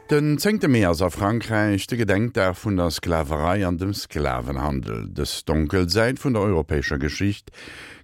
Den zéngte Mee ass a Frankräich de Gedenkdag vun der Sklaverei an dem Sklavenhandel. Dës donkel Säit vun der europäescher Geschicht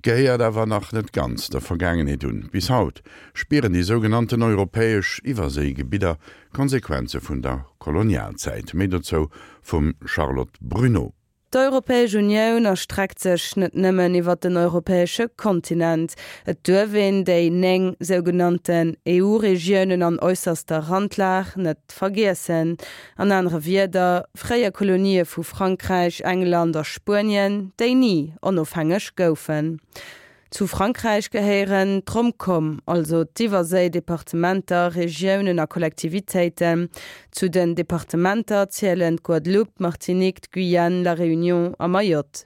gehéiert awer nach net ganz der Vergaangenheet un. Bis haut spieren déi sougenannten europäesch Iwwerséigebidder d'Konsequenze vun der Kolonialzäit. Méi dozou vum Charlotte Bruneau. D'Europäesch Unioun erstreckt sech net nëmmen iwwer den europäesche Kontinent. Et duerf een déi 9 sougenannten EU-Regiounen an äusserster Randlag net vergiessen. An anere Wierder, fréier Kolonië vu Frankräich, England a Spuenien, déi ni onofhängeg goufen. Zu Frankräich gehéieren d'Romcom, also d'Iwwerséi-Departementer, Regiounen a Kollektivitéiten. Zu den Departementer zielen d'Guadeloupe, d'Martinique, d'Guyane, La Réunion a Mayotte.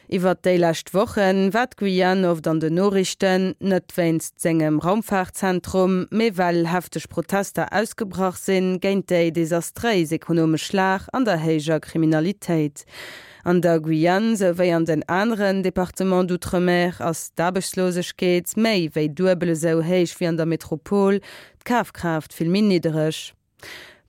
Iwwert déi lescht Woche war d'Guyane oft an den Noriichten, net wéinst sengem Raumfaartzentrum, mee well hefteg Protester ausgebrach sinn géint déi desastréis ekonomesch Lag an der héijer Kriminalitéit. An der Guyane souwéi an den aneren Départements d'outre-mer ass d'Aarbechtslosegkeet méi wéi duebel esou héich wéi an der Metropol, d'Kafkraaft vill méi niddereg.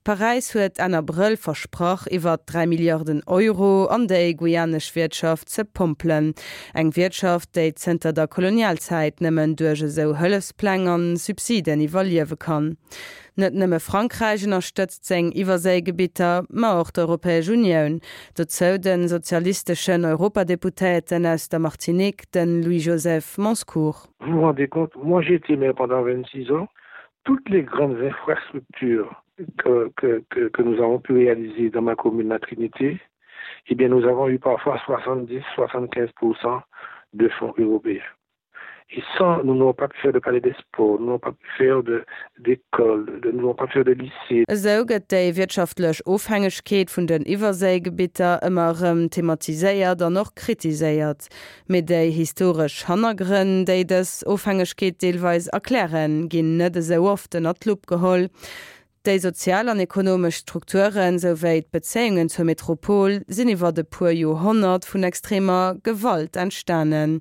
Paräis huet Enn Abrëll versprach, iwwer 3 Milliarden Euro an déi guyanesch Wiertschaft ze pompelen. Eng Wiertschaft, déi zënter der Kolonialzäit nëmmen duerch esou Hëllefspläng an Subsiden iwwerliewe kann. Net nëmme Frankräich ënnerstëtzt seng Iwwerséigebitter, ma och d'Europäesch Unioun. Dozou de sozialisteschen Europadeputéierten aus der Martinique, de Louis-Joseph Monscourt. Vous vous rendez compte, moi j'ai été maire pendant 26 ans, toutes les grandes infrastructures que, que, que, que nous avons pu réaliser dans ma commune, la Trinité, eh bien nous avons eu parfois 70, 75% de fonds européens. Et sans, nous n'avons pas pu faire de palais des sports, nous n'avons pas pu faire d'école, nous n'avons pas pu faire de lycée. Esou gëtt déi wirtschaftlech Ofhängegkeet vun den Iwwerséigebitter ëmmer erëm thematiséiert an och kritiséiert. Mee déi historesch Hannergrënn, déi dës Ofhängegkeet deelweis erklären, ginn net esou oft ënnert d'Lupp geholl. Déi sozial an ekonomesch Strukturen, souwéi d'Bezéiungen zur Metropol sinn iwwert e puer Joerhonnert vun extremer Gewalt entstanen.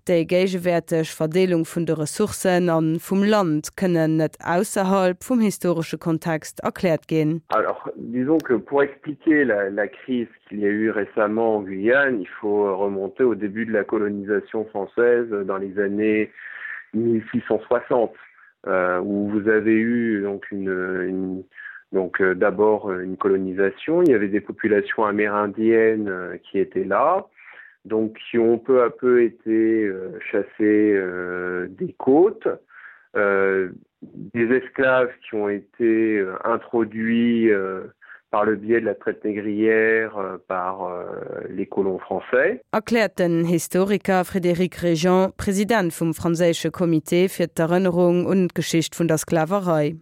Déi géigewäerteg Verdeelung vun de Ressourcen a vum Land kënnen net ausserhalb vum historesche Kontext erkläert ginn. Alors, disons que pour expliquer la, la crise qu'il y a eu récemment en Guyane, il faut remonter au début de la colonisation française dans les années 1660. Euh, où vous avez eu donc une, une donc euh, d'abord une colonisation, il y avait des populations amérindiennes euh, qui étaient là, donc qui ont peu à peu été euh, chassées euh, des côtes, euh, des esclaves qui ont été euh, introduits euh, par le biais de la traite négrière euh, par euh, les colons français. Erkläert den Historiker Frédéric Régent, President vum franséische Comité fir d'Erënnerung un d'Geschicht vun der Sklaverei.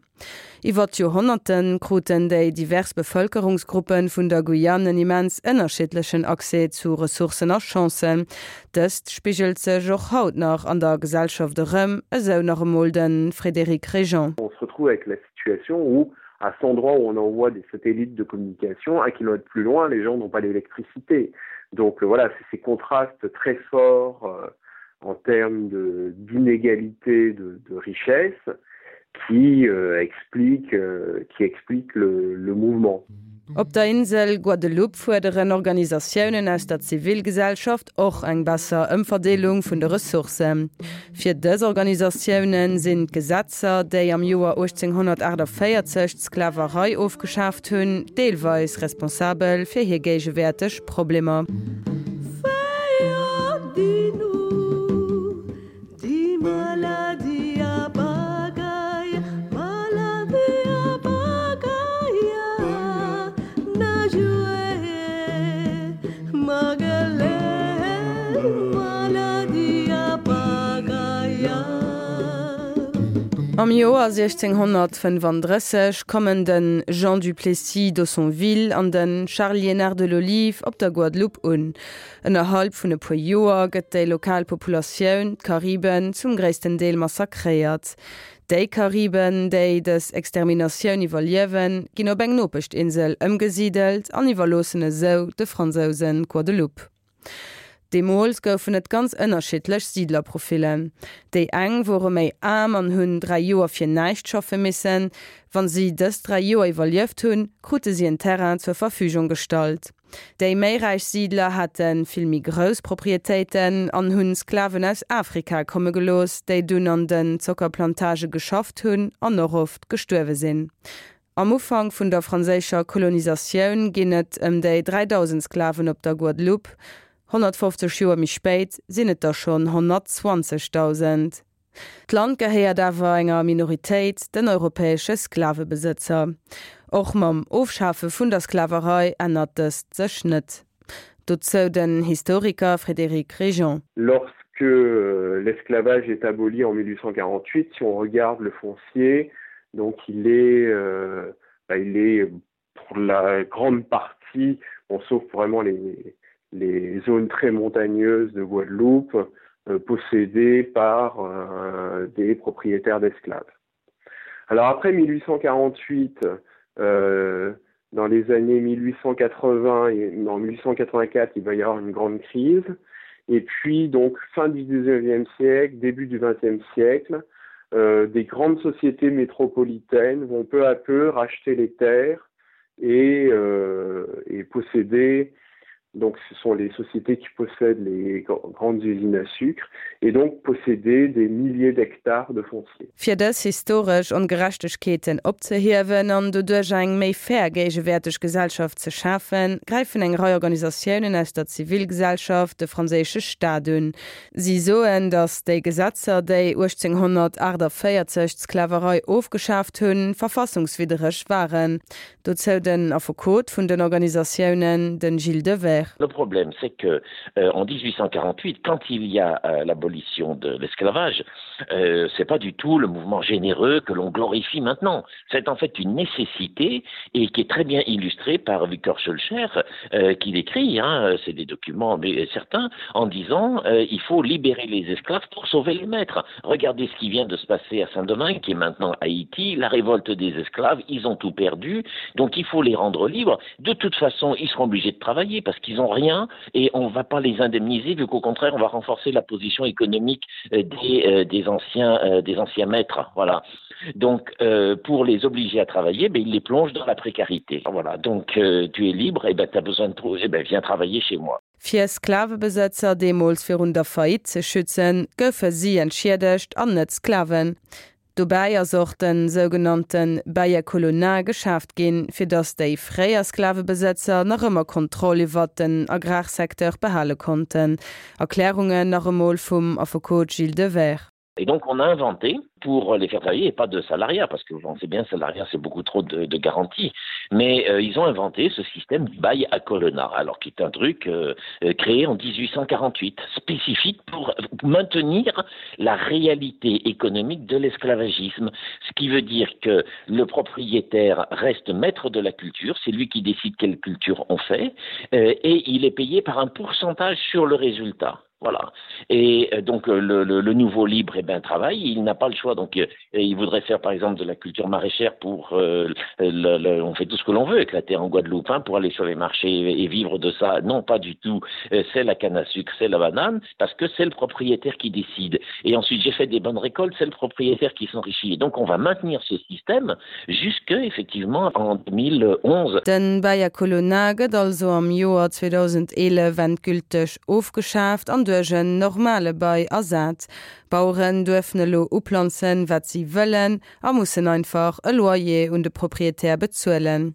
Iwwer d'Joerhonnerte kruten déi divers Bevëlkerungsgruppe vun der Guyane en immens ënnerschiddlechen Accès zu Ressourcen a Chancen. Dëst spigelt sech och haut nach an der Gesellschaft erëm, esou nach emol de Frédéric Régent. On se retrouve avec la situation où à cet endroit où on envoie des satellites de communication, un kilomètre plus loin, les gens n'ont pas d'électricité. Donc euh, voilà, c'est ces contrastes très forts euh, en termes d'inégalité de, de, de richesse qui euh, explique, euh, qui explique le, le mouvement. Op der Insel Guadeloupe fuerderen Organisatiounen aus der Zivilgesellschaft och eng besser Ëmverdeelung vun de Ressourcen. Fir dës Organisatioune sinn d'Gesetzer, déi am Joer 1848 d'Sklaverei ofgeschaaft hunn, deelweis responsabel fir hir géigewäerteg Problemer. Am Joer 1635 kommen de Jean du Plessis d'Haussonville an de Charles Liénard de l'Olive op der Guadeloupe un. Ënnerhalb vun e puer Joer gëtt déi lokal Populatioun, d'Kariben, zum gréissten Deel massakréiert. Déi Kariben, déi dës Exterminatioun iwwerliewen, ginn op eng Nopeschtinsel ëmgesidelt an iwwerloossen esou de Fransousen d'Guadeloupe. Deemools goufen et ganz ënnerschiddlech Siidlerprofillen. Déi eng wore méi aarm an hunn 3 Joer fir näischt schaffe missen. Wann si dës 3 Joer iwwerlieft hunn, krute si en Terrain zur Verfügung gestallt. Déi méi räich Siidler hate vill méi grouss Proprietéiten an hunn Sklaven aus Afrika komme gelooss, déi dunn an den Zockerplantage geschafft hunn an och oft gestuerwe sinn. Am Ufank vun der franséischer Kolonisatioun ginn et ëm déi 3.000 Sklaven op der Guadeloupe. 150 Joer méi spéit sinn et der schonn 120.000. D'Land gehéiert awer enger Minoritéit, den europäesche Sklavebesëtzer. Och mam Ofschafe vun der Sklaverei ännert dëst sech net. Dozou den Historiker Frédéric Régent. Lorsque l'esclavage est aboli en 1848, si on regarde le foncier, donc il est, euh, bah, il est pour la grande partie, bon, sauf vraiment les, les zones très montagneuses de Guadeloupe, euh, possédé par euh, des propriétaires d'esclaves. Alors après 1848, euh, dans les années 1880 et en 1884, il va y avoir une grande crise. Et puis donc fin du 19e siècle, début du 20e siècle, euh, des grandes sociétés métropolitaines vont peu à peu racheter les terres et, euh, et posséder donc ce sont les sociétés qui possèdent les grandes usines à sucre et donc posséder des milliers d'hectares de foncier. Fir dës historesch Ongerechtegkeeten opzehiewen an doduerch eng méi fair géigewäerteg Gesellschaft ze schafen, gräifen eng Rei Organisatiounen aus der Zivilgesellschaft de franséische Staat un. Si soen, datt déi Gesetzer, déi 1848 d'Sklaverei ofgeschaaft hunn, verfassungswiddereg waren. Dozou den Affekot vun den Organisatiounen, de Gilles Devers. Le problème c'est que euh, en 1848 quand il y a euh, l'abolition de l'esclavage, euh, c'est pas du tout le mouvement généreux que l'on glorifie maintenant. C'est en fait une nécessité et qui est très bien illustrée par Victor Schulcher euh, qui l'écrit, c'est des documents mais certains, en disant euh, il faut libérer les esclaves pour sauver les maîtres. Regardez ce qui vient de se passer à Saint-Domingue, qui est maintenant Haïti, la révolte des esclaves, ils ont tout perdu, donc il faut les rendre libres. De toute façon, ils seront obligés de travailler parce qu'ils n'ont rien et on ne va pas les indemniser vu qu'au contraire, on va renforcer la position économique euh, des, euh, des, anciens, euh, des anciens maîtres. Voilà. Donc euh, pour les obliger à travailler, ben, ils les plongent dans la précarité. Voilà. Donc euh, tu es libre et ben, tu as besoin de trouver, eh ben, viens travailler chez moi. Fir Sklavebesëtzer deemools virun der Faillite ze schützen, goufe si entschiedegt an net d'Sklaven. Dobäi ass och de sougenannte Bail à colonat geschaaft ginn, fir datt déi fréier Sklavebesëtzer nach ëmmer Kontroll iwwert den Agrarsecteur behale konnten. Erklärungen nach emol vum Affekot Gilles Devers. Et donc on a inventé pour les faire travailler et pas de salariat parce que vous pensez bien salariat c'est beaucoup trop de, de garanties mais euh, ils ont inventé ce système du bail à colonna alors qui est un truc euh, euh créé en 1848 spécifique pour maintenir la réalité économique de l'esclavagisme ce qui veut dire que le propriétaire reste maître de la culture c'est lui qui décide quelle culture on fait euh, et il est payé par un pourcentage sur le résultat Voilà. Et euh, donc euh, le, le, le nouveau libre et eh ben travail, il n'a pas le choix. Donc euh, il voudrait faire par exemple de la culture maraîchère pour euh, le, le, on fait tout ce que l'on veut éclater en Guadeloupe hein, pour aller sur les marchés et, et vivre de ça. Non pas du tout. Euh, c'est la canne à sucre, c'est la banane, parce que c'est le propriétaire qui décide. Et ensuite j'ai fait des bonnes récoltes, c'est le propriétaire qui s'enrichit. Et donc on va maintenir ce système jusque effectivement en 2011. Den Bail à colonna gëtt also am Joer 2011 endgülteg ofgeschaaft an duerch en normale Bail ersat. D'Baueren duerfen elo uplanzen, wat si wëllen a mussen einfach e Loyer un de Proprietär bezuelen.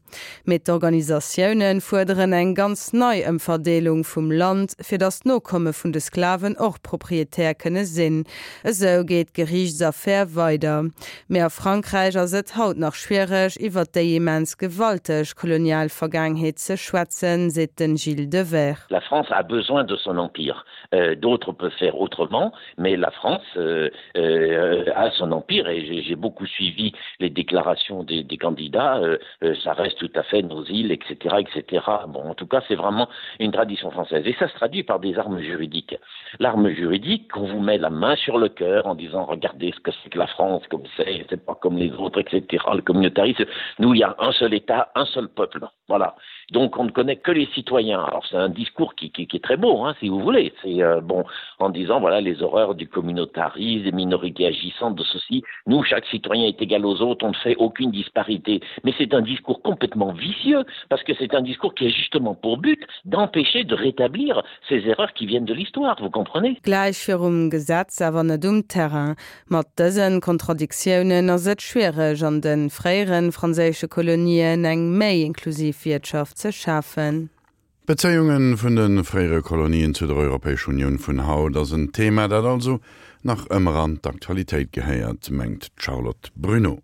Mee d'Organisatioune fuerderen eng ganz nei Ëmverdeelung vum Land, fir datt d'Nokomme vun de Sklaven och Proprietär kënne sinn. Esou geet d'Geriichtsaffär weider. Mee a Frankräich ass et haut nach schwiereg, iwwer déi immens gewalteg kolonial Vergaangenheet ze schwätzen, seet den Gilles Devers. La France a besoin de son empire. Euh, d'autres peuvent faire autrement, mais la France. menace euh, euh, à son empire et j'ai beaucoup suivi les déclarations des, des candidats euh, euh, ça reste tout à fait nos îles etc etc bon en tout cas c'est vraiment une tradition française et ça se traduit par des armes juridiques l'arme juridique qu'on vous met la main sur le cœur en disant regardez ce que c'est que la France comme c'est c'est pas comme les autres etc le communautarisme nous il y a un seul état un seul peuple voilà donc on ne connaît que les citoyens alors c'est un discours qui, qui, qui est très beau hein, si vous voulez c'est euh, bon en disant voilà les horreurs du communautarisme des minorités agissantes de ceci nous chaque citoyen est égal aux autres on ne fait aucune disparité mais c'est un discours complètement vicieux parce que c'est un discours qui est justement pour but d'empêcher de rétablir ces erreurs qui viennent de l'histoire vous comprenez Gläich virum Gesetz, awer net um Terrain. Mat dësen Kontradiktiounen ass et schwiereg an de fréieren franséische Kolonien eng méi inklusiv Wiertschaft ze schafen. D'Bezéiunge vun de fréiere Kolonien zu der Europäesch Unioun vun haut ass en Thema, dat also nach ëmmer an d'Aktualitéit gehéiert, mengt d'Charlotte Bruneau.